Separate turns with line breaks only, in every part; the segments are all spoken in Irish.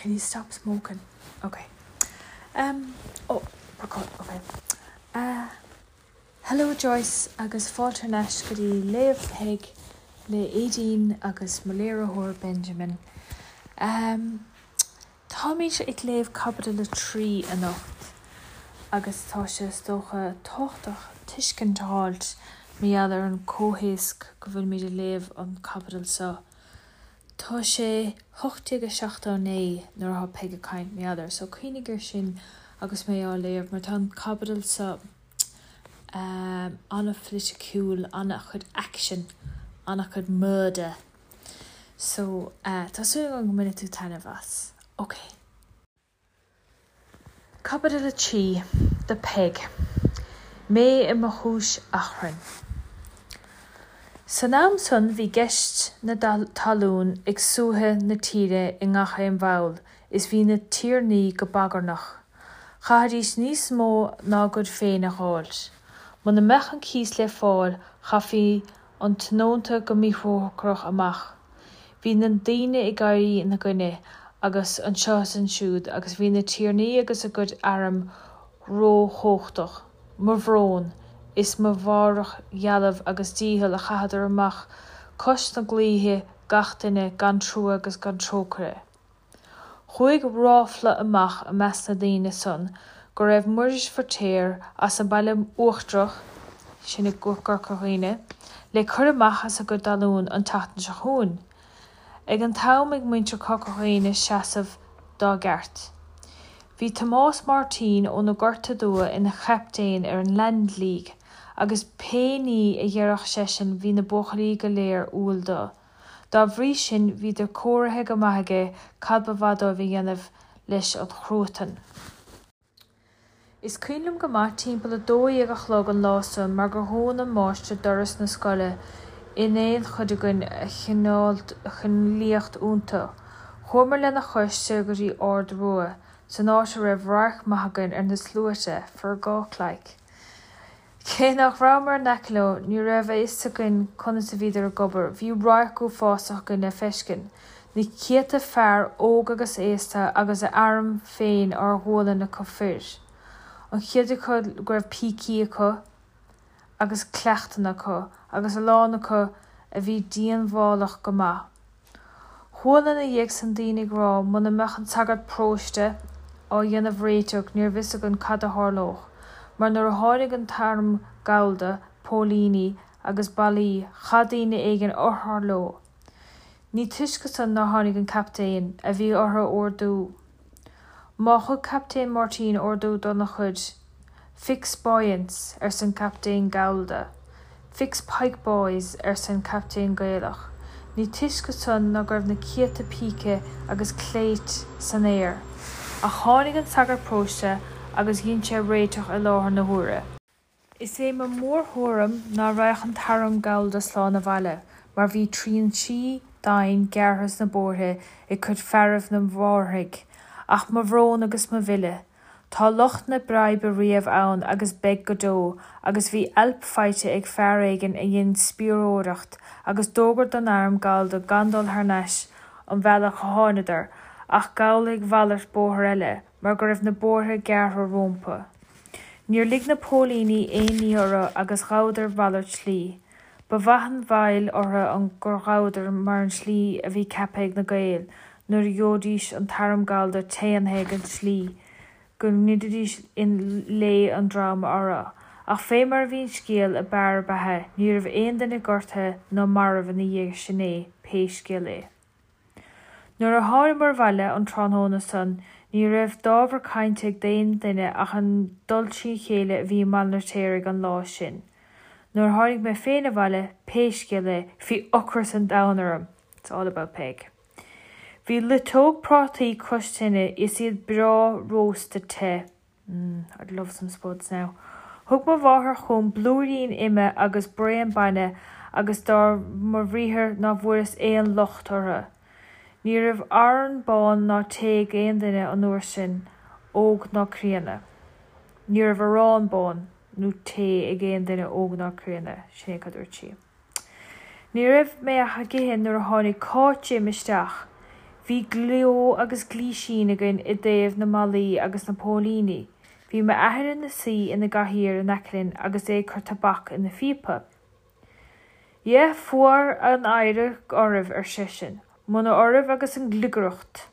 Can you stop smoking? Ok. Um, oh, record, ok. Uh, hello Joyce agus fáilte thar n-ais go dtí Léamh Peig le Aedín agus mo léiritheoir Benjamin. Um, Táimid ag léamh Caibidil 3 anocht agus tá sé is dócha tábhachtach tuiscint a fháilt mar gheall ar an comhthéasc go bhfuilimid ag léamh an caibidil seo. Tá sé 1879 nuair atá Peig ag caint mar gheall air so cuimhnigh ar sin agus mé á léamh mar tá an caibidil seo an-phoiliticiúil, an-chuid action, an-chuid murder. So, tá súil agam go mbainfidh tú taitneamh as. Ok. Caibidil 3, do Peig. Mé i mo chúis achrainn. San am san bhí ceist na talún ag suaitheadh na tíre i ngach aon bhall is bhí na tiarnaí go bagarnach. Chaithfidís níos mó ná a gcuid féin a dh'fháilt. Muna mbeadh an cíos le fáil chaithfí an tionónta go míthrócaireach amach. Bhí na daoine ag éirí ina gcoinne agus anseo is ansiúd agus bhí na tiarnaí agus a gcuid airm róchumhachtach. Mo bhrón is mo mhairbhdhealbh agus dícheall a chaitheadar amach cois na gclaíthe gach duine gan trua agus gan trócaire. Chuaigh ráfla amach i measc na ndaoine san go raibh Muiris Feirtéar as an Baile Uachtarach, sin i gCorca Dhuibhne, le cur amach as a gcuid talún an tseachtain seo chugainn. Ag an t-am ag muintir Chorca Dhuibhne seasamh dá gceart. Bhí Tomás Máirtín ó na Gorta Dubha ina chaptaen ar an Land League agus pé ní a dheireadh seisean bhí na buachaillí go léir umhal do. Dá bhrí sin bhíodar cóirithe go maith aige cad ba mhaith dóibh a dhéanamh leis an chruatan. Is cuimhin liom go maith timpeall 12 a chlog an lá san mar gur dhún an máistir doras na scoile in aon chuid againn a choinneáil iontu. Chuamar lena chois soir go dtí Ard Rua, san áit a raibh radharc maith againn ar na sluaite, for gawk like. Cé nach rabhamar in aice leo, ní raibh a fhios againn conas a bhíodar ag obair. Bhí radharc uafásach againn le feiscint. Na céadta fear, óg agus aosta, agus a arm féin ár ghualainn acu fir. An chuid acu go raibh pící acu agus cleachtanna acu, agus a lán acu a bhí díonbhálach go maith. Chuala ina dhiaidh san daoine ag rá muna mbeadh an sagart paróiste á dhéanamh réiteach níorbh fhios againn cad a tharlódh, mar nuair a tháinig an t-arm gallda, póilíní agus ballaí, chaith daoine éigin urchar leo. Ní túisce san ná tháinig an captaen, a bhí orthu ordú. Má thug Captaen Máirtín ordú dona chuid, Fix bayonets, arsa an Captaen Gallda. Fix pike boys, arsa an Captaen Gaelach. Ní túisce san ná go raibh na céadta píce agus cléit san aer. Ach tháinig an sagart paróiste agus dhein sé réiteach i láthair na huaire. Is é mo mhórthuairim ná raghadh an t-arm gallda slán abhaile, mar bhí trinsí doimhin gearrtha sna bóithre ag cuid fearaibh na bhFáirthigh. Ach mo bhrón agus mo mhilleadh! Tá lucht na breibe riamh ann agus beidh go deo, agus bhí ailp faighte ag fear éigin a dhein spiaireoireacht agus d'fhógair don arm gallda gan dul thar n-ais an bhealach a tháinadar, ach gabhail ag mhalairt bóthair eile, mar go raibh na bóithre gearrtha rómpa. Níor lig na póilíní aon ní orthu agus ghabhadar mhalairt slí. Ba mhaith an bhail orthu an gur ghabhadar mar an tslí a bhí ceaptha ag na Gaeil nuair a gheobhaidís an t-arm gallda téannaithe ag an tslí go ngoidfidís i lao an dream orthu. Ach fé mar a bhí an scéal ab fhearr a beatha ní raibh aon duine gortaithe ná marbh ina dhiaidh sin é pé scéal é. Nuair a thánamar abhaile an tráthnóna san ní raibh d'ábhar cainte ag aon duine ach an dul trína chéile a bhí i mBaile an Fheirtéaraigh an lá sin. Nuair a tháinig mé féin abhaile, pé scéal é, bhí ocras an domhain orm. It's all about Peig. Bhí loiteog prátaí cois tine is iad breá rósta te. Mmm, I'd love some spuds now. Thug mo mháthair chugam blúirín ime agus braon bainne agus dar mo bhriathar ná bhfuaireas aon locht orthu. Ní raibh arán bán ná tae ag aon duine an uair sin, óg ná críonna. Ní raibh arán bán nó tae ag aon duine óg ná críonna, sin é cad dúirt sí. Ní raibh mé ach ag ithe nuair a tháinig Cáit Jim isteach. Bhí gleo agus gleoisín againn i dtaobh na mballaí agus na póilíní. Bhí m'athair ina suí ina gcathaoir in aice linn agus é ag cur tobac ina phíopa. Dhea, fuar an oidhre oraibh, ar seisean. Muna oraibh agus an ghliogaireacht!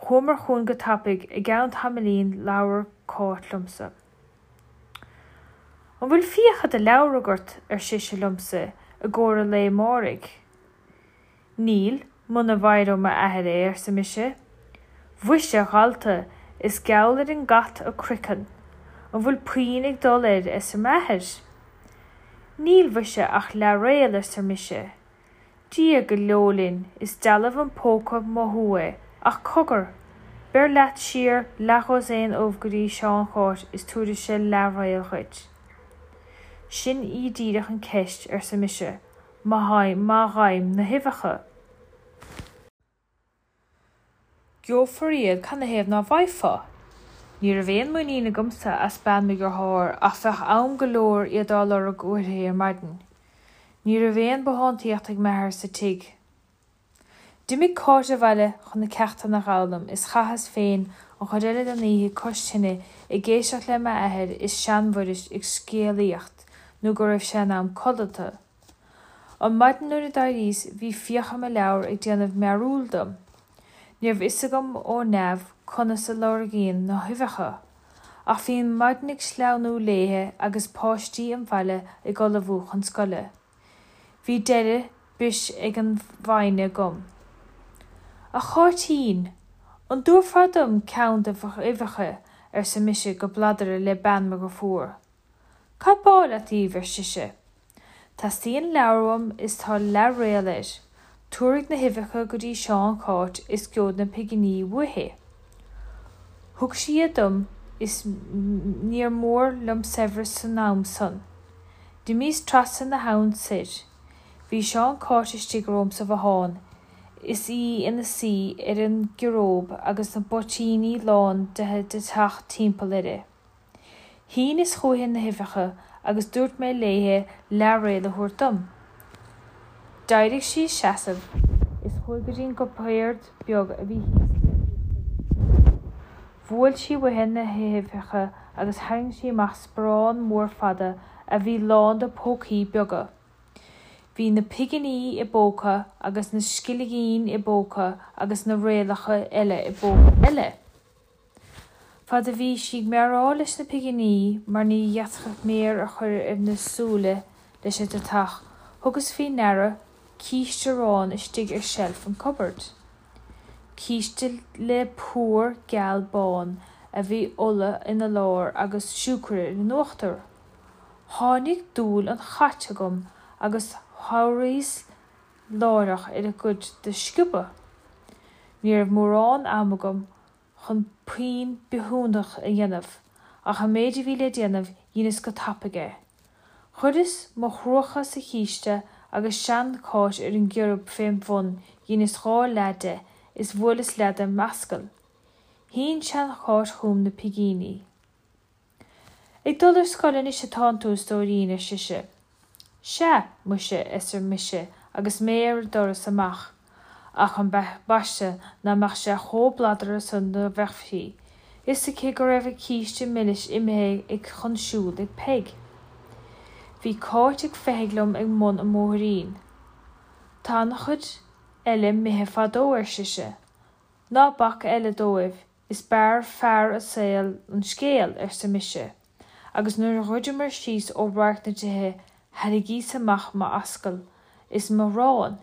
Chuamar chugainn go tapaidh, i gceann tamaillín labhair Cáit liomsa. An bhfuil fiacha do leabhar agat, ar sise liomsa, i gcomhair an lae amáirigh? Níl, muna bhfaighidh ó m'athair é, arsa mise. Mhuise, a dhalta, is geall ar an gcat a croiceann. An bhfuil puinn ag dul air, arsa m'athair. Níl, mhuise, ach leathréal, arsa mise. Dia go leo linn, is dealbh an póca mothú é, ach cogar! Beir leat siar leathdhosaen ubh go dtí Seán Cháit is tabharfaidh sé leathréal dhuit. Sin í díreach an cheist, arsa mise, má fhaighim na huibheacha. Gheofar iad, canathaobh ná bhfaighfeá? Ní raibh aon muinín agamsa as bean mo dhearthár ach bheadh am go leor iad á lorg uaithi ar maidin. Ní raibh aon bothántaíocht ag m'athair sa tigh. D'imigh Cáit abhaile chun na ceachtanna a dh'fhoghlaim is chaitheas féin an chuid eile den oíche cois tine ag éisteacht le m'athair is seanMhuiris ag scéalaíocht nó go raibh sé in am codlata. An maidin nuair a d'éiríos bhí fiacha mo leabhar ag déanamh mearúil dom. Ní raibh fhios agam ó neamh conas a lorgaíonn na huibheacha. Ach bhí an mhaidin ag sleamhnú léithe agus páistí an bhaile ag ullmhú chun scoile. Bhí deireadh bis ag an bhfoighne agam. A Cháitín, an dtabharfá dom ceann de d'uibheacha, arsa mise go bladar le bean mo dheirfiúr. Cad b'áil leat díobh, ar sise. Teastaíonn leabhar uaim is tá leathréal air. Tabharfaidh na huibheacha go dtí Seán Cháit is geobhaid na pighní uaithi. Thug sí iad dom is níor mhór liom saibhreas san am san. D'imíos trasna na habhann soir. Bhí Seán Cáit istigh romham sa bhothán is í ina suí ar an gciaróg agus na bpoitíní lán de deatach timpeall uirthi. Shíneas chúichi na huibheacha agus dúirt mé léithe leathréal a thabhairt dom. D'éirigh sí as seasamh is chuaigh go dtí an gcupard beag a bhí thíos le híochtar an tí. Bhuail sí uaithi na huibheacha agus tharraing sí amach sparán mór fada a bhí lán de phócaí beaga. Bhí na pighní i bpóca agus na scillingí i bpóca agus na réalacha eile i bpóca eile. Fad a bhí sí ag meáráil leis na pighní mar ní fhéadfadh méar a chur ar na súile leis an deatach, thugas faoi ndeara císte aráin istigh ar seilf an cupboard. Císte le plúr geal bán a bhí ola ina lár agus siúcra ar an uachtar. Tháinig dúil an chait agam agus chabhraíos láithreach ar an gcuid do sciobadh. Ní raibh mórán ama agam chun puinn bithiúnach a dhéanamh, ach an méid a bhí le déanamh dheineas go tapaidh é. Chuireas mo chruacha sa chíste agus sean-Cháit ar an gciorb fém bhun dheineas dha leath de is bhuaileas leath de m'ascaill. Shín sean-Cháit chugam na pingíní. Ag dul ar scoil anois atánn tú, a stóirín, ar sise. Sea, muise, arsa mise agus mé ar an doras amach, ach ambaiste ná mbeadh sé chomh bladartha san dá mbeadh fhios aici go raibh an císte milis imithe ag chun siúil ag Peig. Bhí Cáit ag feitheamh liom ag mbun an bhóithrín. Tá an-chuid eile 'mithe fadó, ar sise. Ná bac eile dóibh, Is b'fhearr fear a' saoil an scéal, arsa mise, agus nuair a dhruideamair síos ó radharc na dtithe thairrigíos amach m'ascaill is m'arán.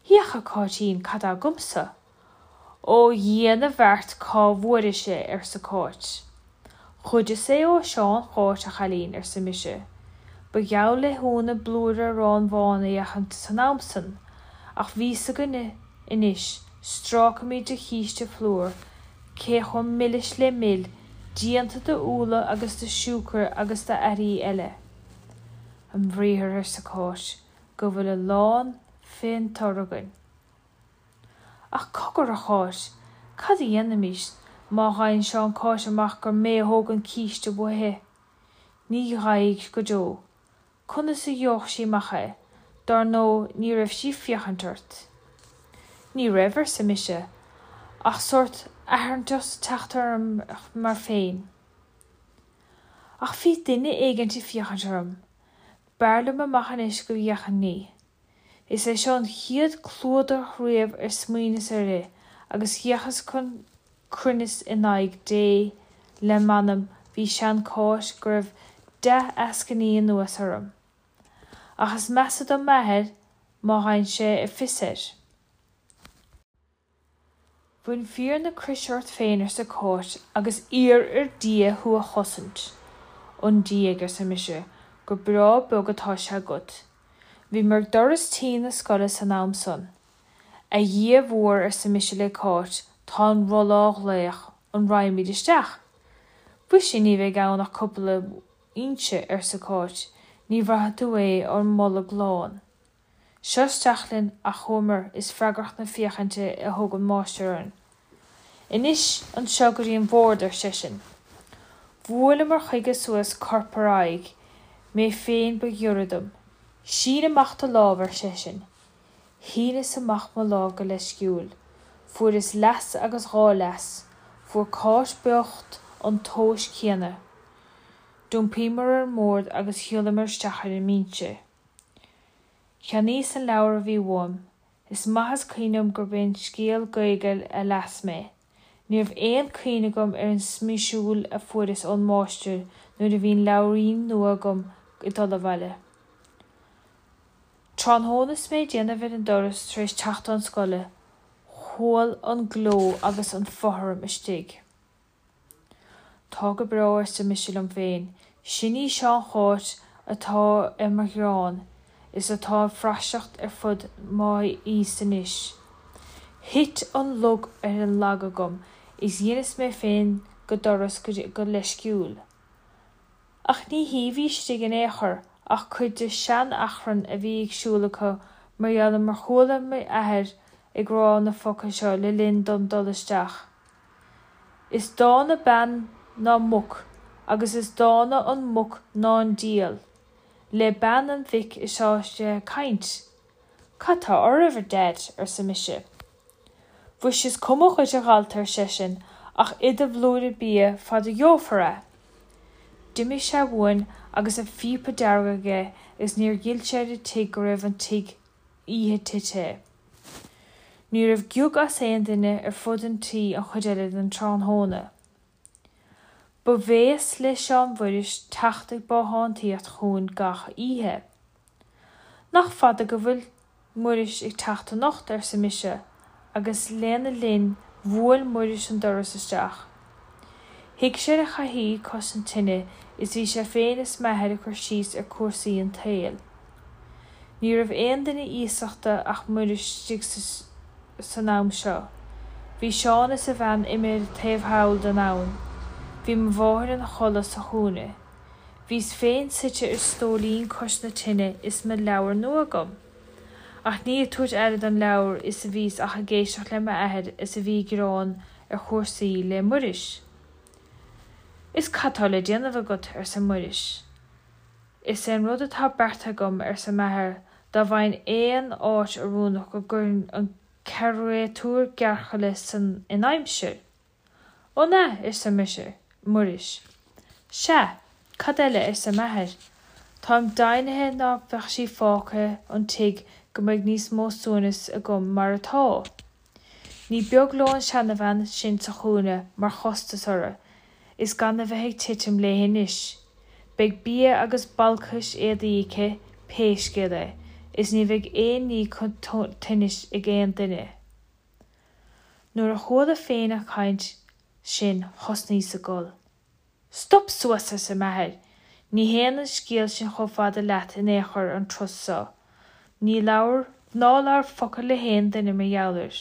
Féach, a Cháitín, cad tá agamsa. Ó Dhia na bhfeart cá bhfuairis é, arsa Cáit. Ghoideas é ó Sheán Cháit, a chailín, arsa mise. Ba gheall le hionadh blúire aráin bháin a fheachaint san am san, ach bhí 's againne anois, strácaimid de chíste phlúir, cé chomh milis le mil, déanta de úlla agus de siúcra agus d'earraí eile. A bhriathar, arsa Cáit, go bhfuil a lán fén tor againn. Ach cogar, a Cháit, cad a dhéanfaimis má fhaigheann Seán Cáit amach gur mé a thóg an císte uaithi? Ní gheobhaidh go deo. Conas a gheobhadh sí amach é? Dár ndóigh ní raibh sí ag féachaint ort. Ní raibh, arsa mise, ach sórt atharthachta ag teacht orm mar féin. Ach bhí duine éigint ag féachaint orm. B'fhearr liom amach anois go bhféachfainn ní. Is é seo an chéad chluadach riamh ar smaoineas uirthi agus d'fhéachas chun cruinnis in aghaidh Dé le m'anam bhí sean-Cháit go raibh dea-eascainí anuas orm. Ach is measa do m'athair má fhaigheann sé fios air. Bain fíor na croise ort féin, arsa Cáit, agus iarr ar Dhia thú a chosaint. 'On diaidh, arsa mise, gur breá beag atá sé agat. Bhíomar ag doras tí na scoile san am san. A Dhia mhóir, arsa mise le Cáit, tá an rolla á ghlaoch, an raghaimid isteach? Mhuise ní bheidh ann ach cúpla inse, arsa Cáit, ní bhraithfidh tú é ár mbolg lán. Seo isteach linn ach chuamar is freagracht na féachainte a thug an máistir orainn. Anois anseo go dtí an bord, ar seisean. Bhuaileamar chuige suas corp ar aghaidh, mé féin ba ghiorra dom. Sín amach do lámh, ar seisean. Shíneas amach mo lámh go leisciúil. Fuaireas leas agus dhá leas. Fuair Cáit bocht an tomhas céanna. D'iompaíomar ar an mbord agus shiúlamar isteach ar an mbinse. Cheannaíos an leabhar a bhí uaim. Is maith is cuimhin liom gurb é an scéal Gaeilge a las mé. Ní raibh aon chuimhne agam ar an smisiúil a fuaireas ón máistir nuair a bhí an leabhairín nua agam ag dul abhaile. Tráthnóna is mé ag déanamh ar an doras tar éis teacht ón scoile, chuala an gleo agus an fothram istigh. Tá go breá, arsa mise liom féin, sin í sean-Cháit atá ar mo ghearán is atá ag praiseach ar fud m'aois anois. Thit an lug ar an lag agam is dheineas mé féin go doras go leisciúil. Ach ní hí a bhí istigh in aon chor ach cuid de shean-achrann a bhí ag siúl acu mar gheall ar mar chuala m'athair ag rá na focail seo le linn dom dul isteach. Is dána bean ná muc agus is dána an muc ná an diabhal. Le bean an mhic atá sé ag caint. Cad tá oraibh, a Dhaid? arsa mise. Mhuise is cuma dhuit, a dhalta, ar seisean, ach ith do bhlúire bia fad a gheofar é. D'imigh sé uainn agus a phíopa dearg aige agus níor fhill sé ar an tigh go raibh an tigh oíche tite. Ní raibh giog as aon duine ar fud an tí an chuid eile den tráthnóna. Ba bhéas le Seán Mhuiris teacht ag bothántaíocht chugainn gach oíche. Nach fada go bhfuil Muiris ag teacht anocht, arsa mise, agus lena linn bhuail Muiris an doras isteach. Shuigh sé ar an chathaoir cois an tine is bhí sé féin is m'athair ag cur síos ar chúrsaí an tsaoil. Ní raibh aon duine iasachta ach Muiris istigh san am seo. Bhí Seán is a bhean imithe taobh thall den abhainn. Bhí mo mháthair ina chodladh sa chúinne. Bhíos féin suite ar stóilín cois na tine is mo leabhar nua agam. Ach ní ag tabhairt aire don leabhar is a bhíos ach ag éisteacht le m'athair is a bhí ag gearán ar chúrsaí le Muiris. Is cad tá le déanamh agat? arsa Muiris. Is é an rud atá beartaithe agam, arsa m'athair, dá bhfaighinn aon áit oiriúnach go gcuirfinn an créatúr gearrchaile san in aimsir. An ea? arsa mise, Muiris. Sea, cad eile, arsa m'athair. Táim deimhnithe ná beadh sí fágtha an tigh go mbeidh níos mó suaimhnis agam mar atá. Ní beag leo an seanabhean sin sa chúinne mar chostas orthu, is gan a bheith ag titim léi anois. Beidh bia agus balcais éadaí aici pé scéal é, is ní bheidh aon ní chun tinnis ag aon duine. Nuair a chuala féin an chaint sin thosnaíos ag gol. Stop suas, arsa m'athair, ní théann an scéal sin chomh fada leat in aon chor an turas so. Ní labhair, ná labhair focal le haon duine mar gheall air.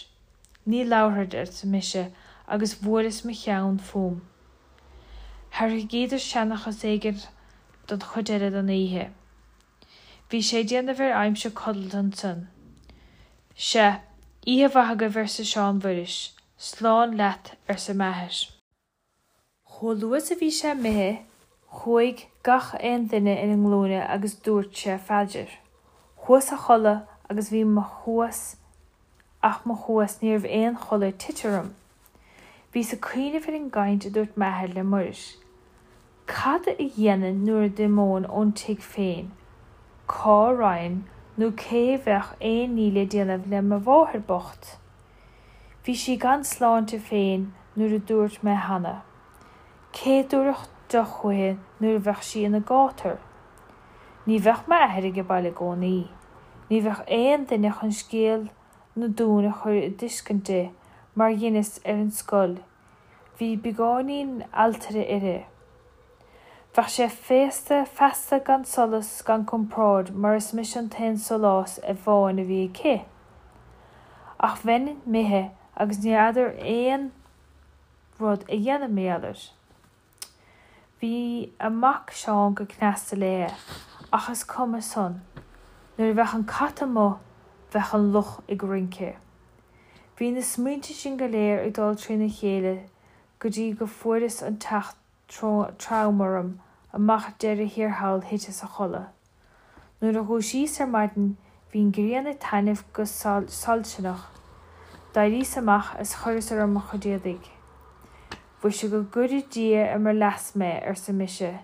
Ní labharfad, arsa mise agus bhuaileas mo cheann fúm. Thairringíodar seanchas éigin don chuid eile den oíche. Bhí sé ag déanamh ar aimsir codlata ansan. Sea, oíche mhaith agaibh, arsa Seán Mhuiris. Slán leat, arsa m'athair. Chomh luath is a bhí sé imithe, chuaigh gach aon duine ina nglúine agus dúirt sé phaidir. Chuas a chodladh agus bhí mo chuas. Ach mo chumhas ní raibh aon chodladh ag tite orm. Bhíos ag cuimhneamh ar an gcaint a dúirt m'athair le Muiris. Cad a dhéanfainn nuair a d'imeoinn ón tigh féin? Cá raghainn nó cé bheadh aon ní le déanamh le mo mháthair bocht? Bhí sí gan sláinte féin nuair a dúirt mé cheana. Cé dtabharfadh deoch chuici nuair a bheadh sí ina gátar? Ní bheadh m'athair age baile i gcónaí. Ní bheadh aon duine chun scéal na dTonn a chur i dtuiscint di mar dheineas ar an scoil. Bhí beagáinín alltaire uirthi. Bheadh sé féasta feasta gan solas gan compord mar is mise an t-aon sólás amháin a bhí aici. Ach bheinn imithe agus ní fheadar aon rud a dhéanamh mar gheall air. Bhí a mac Seán go cneasta léi, ach is cuma san. Nuair a bheadh an cat amuigh, bheadh an luch ag rince. Bhí na smaointe sin go léir ag dul trína chéile go dtí go fuaireas an teach trom orm amach deireadh thiar thall thiteas a chodladh. Nuair a dhúisíos ar maidin bhí an ghrian ag taitneamh go soilseanach. D'éiríos amach is chuireas orm mo chuid éadaigh. Mhuise go gcuire Dia ar mo leas mé, arsa mise,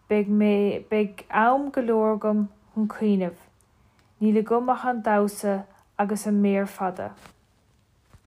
beidh mé, beidh am go leor agam chun cuimhneamh. Níl agam ach an damhsa agus an méar fada.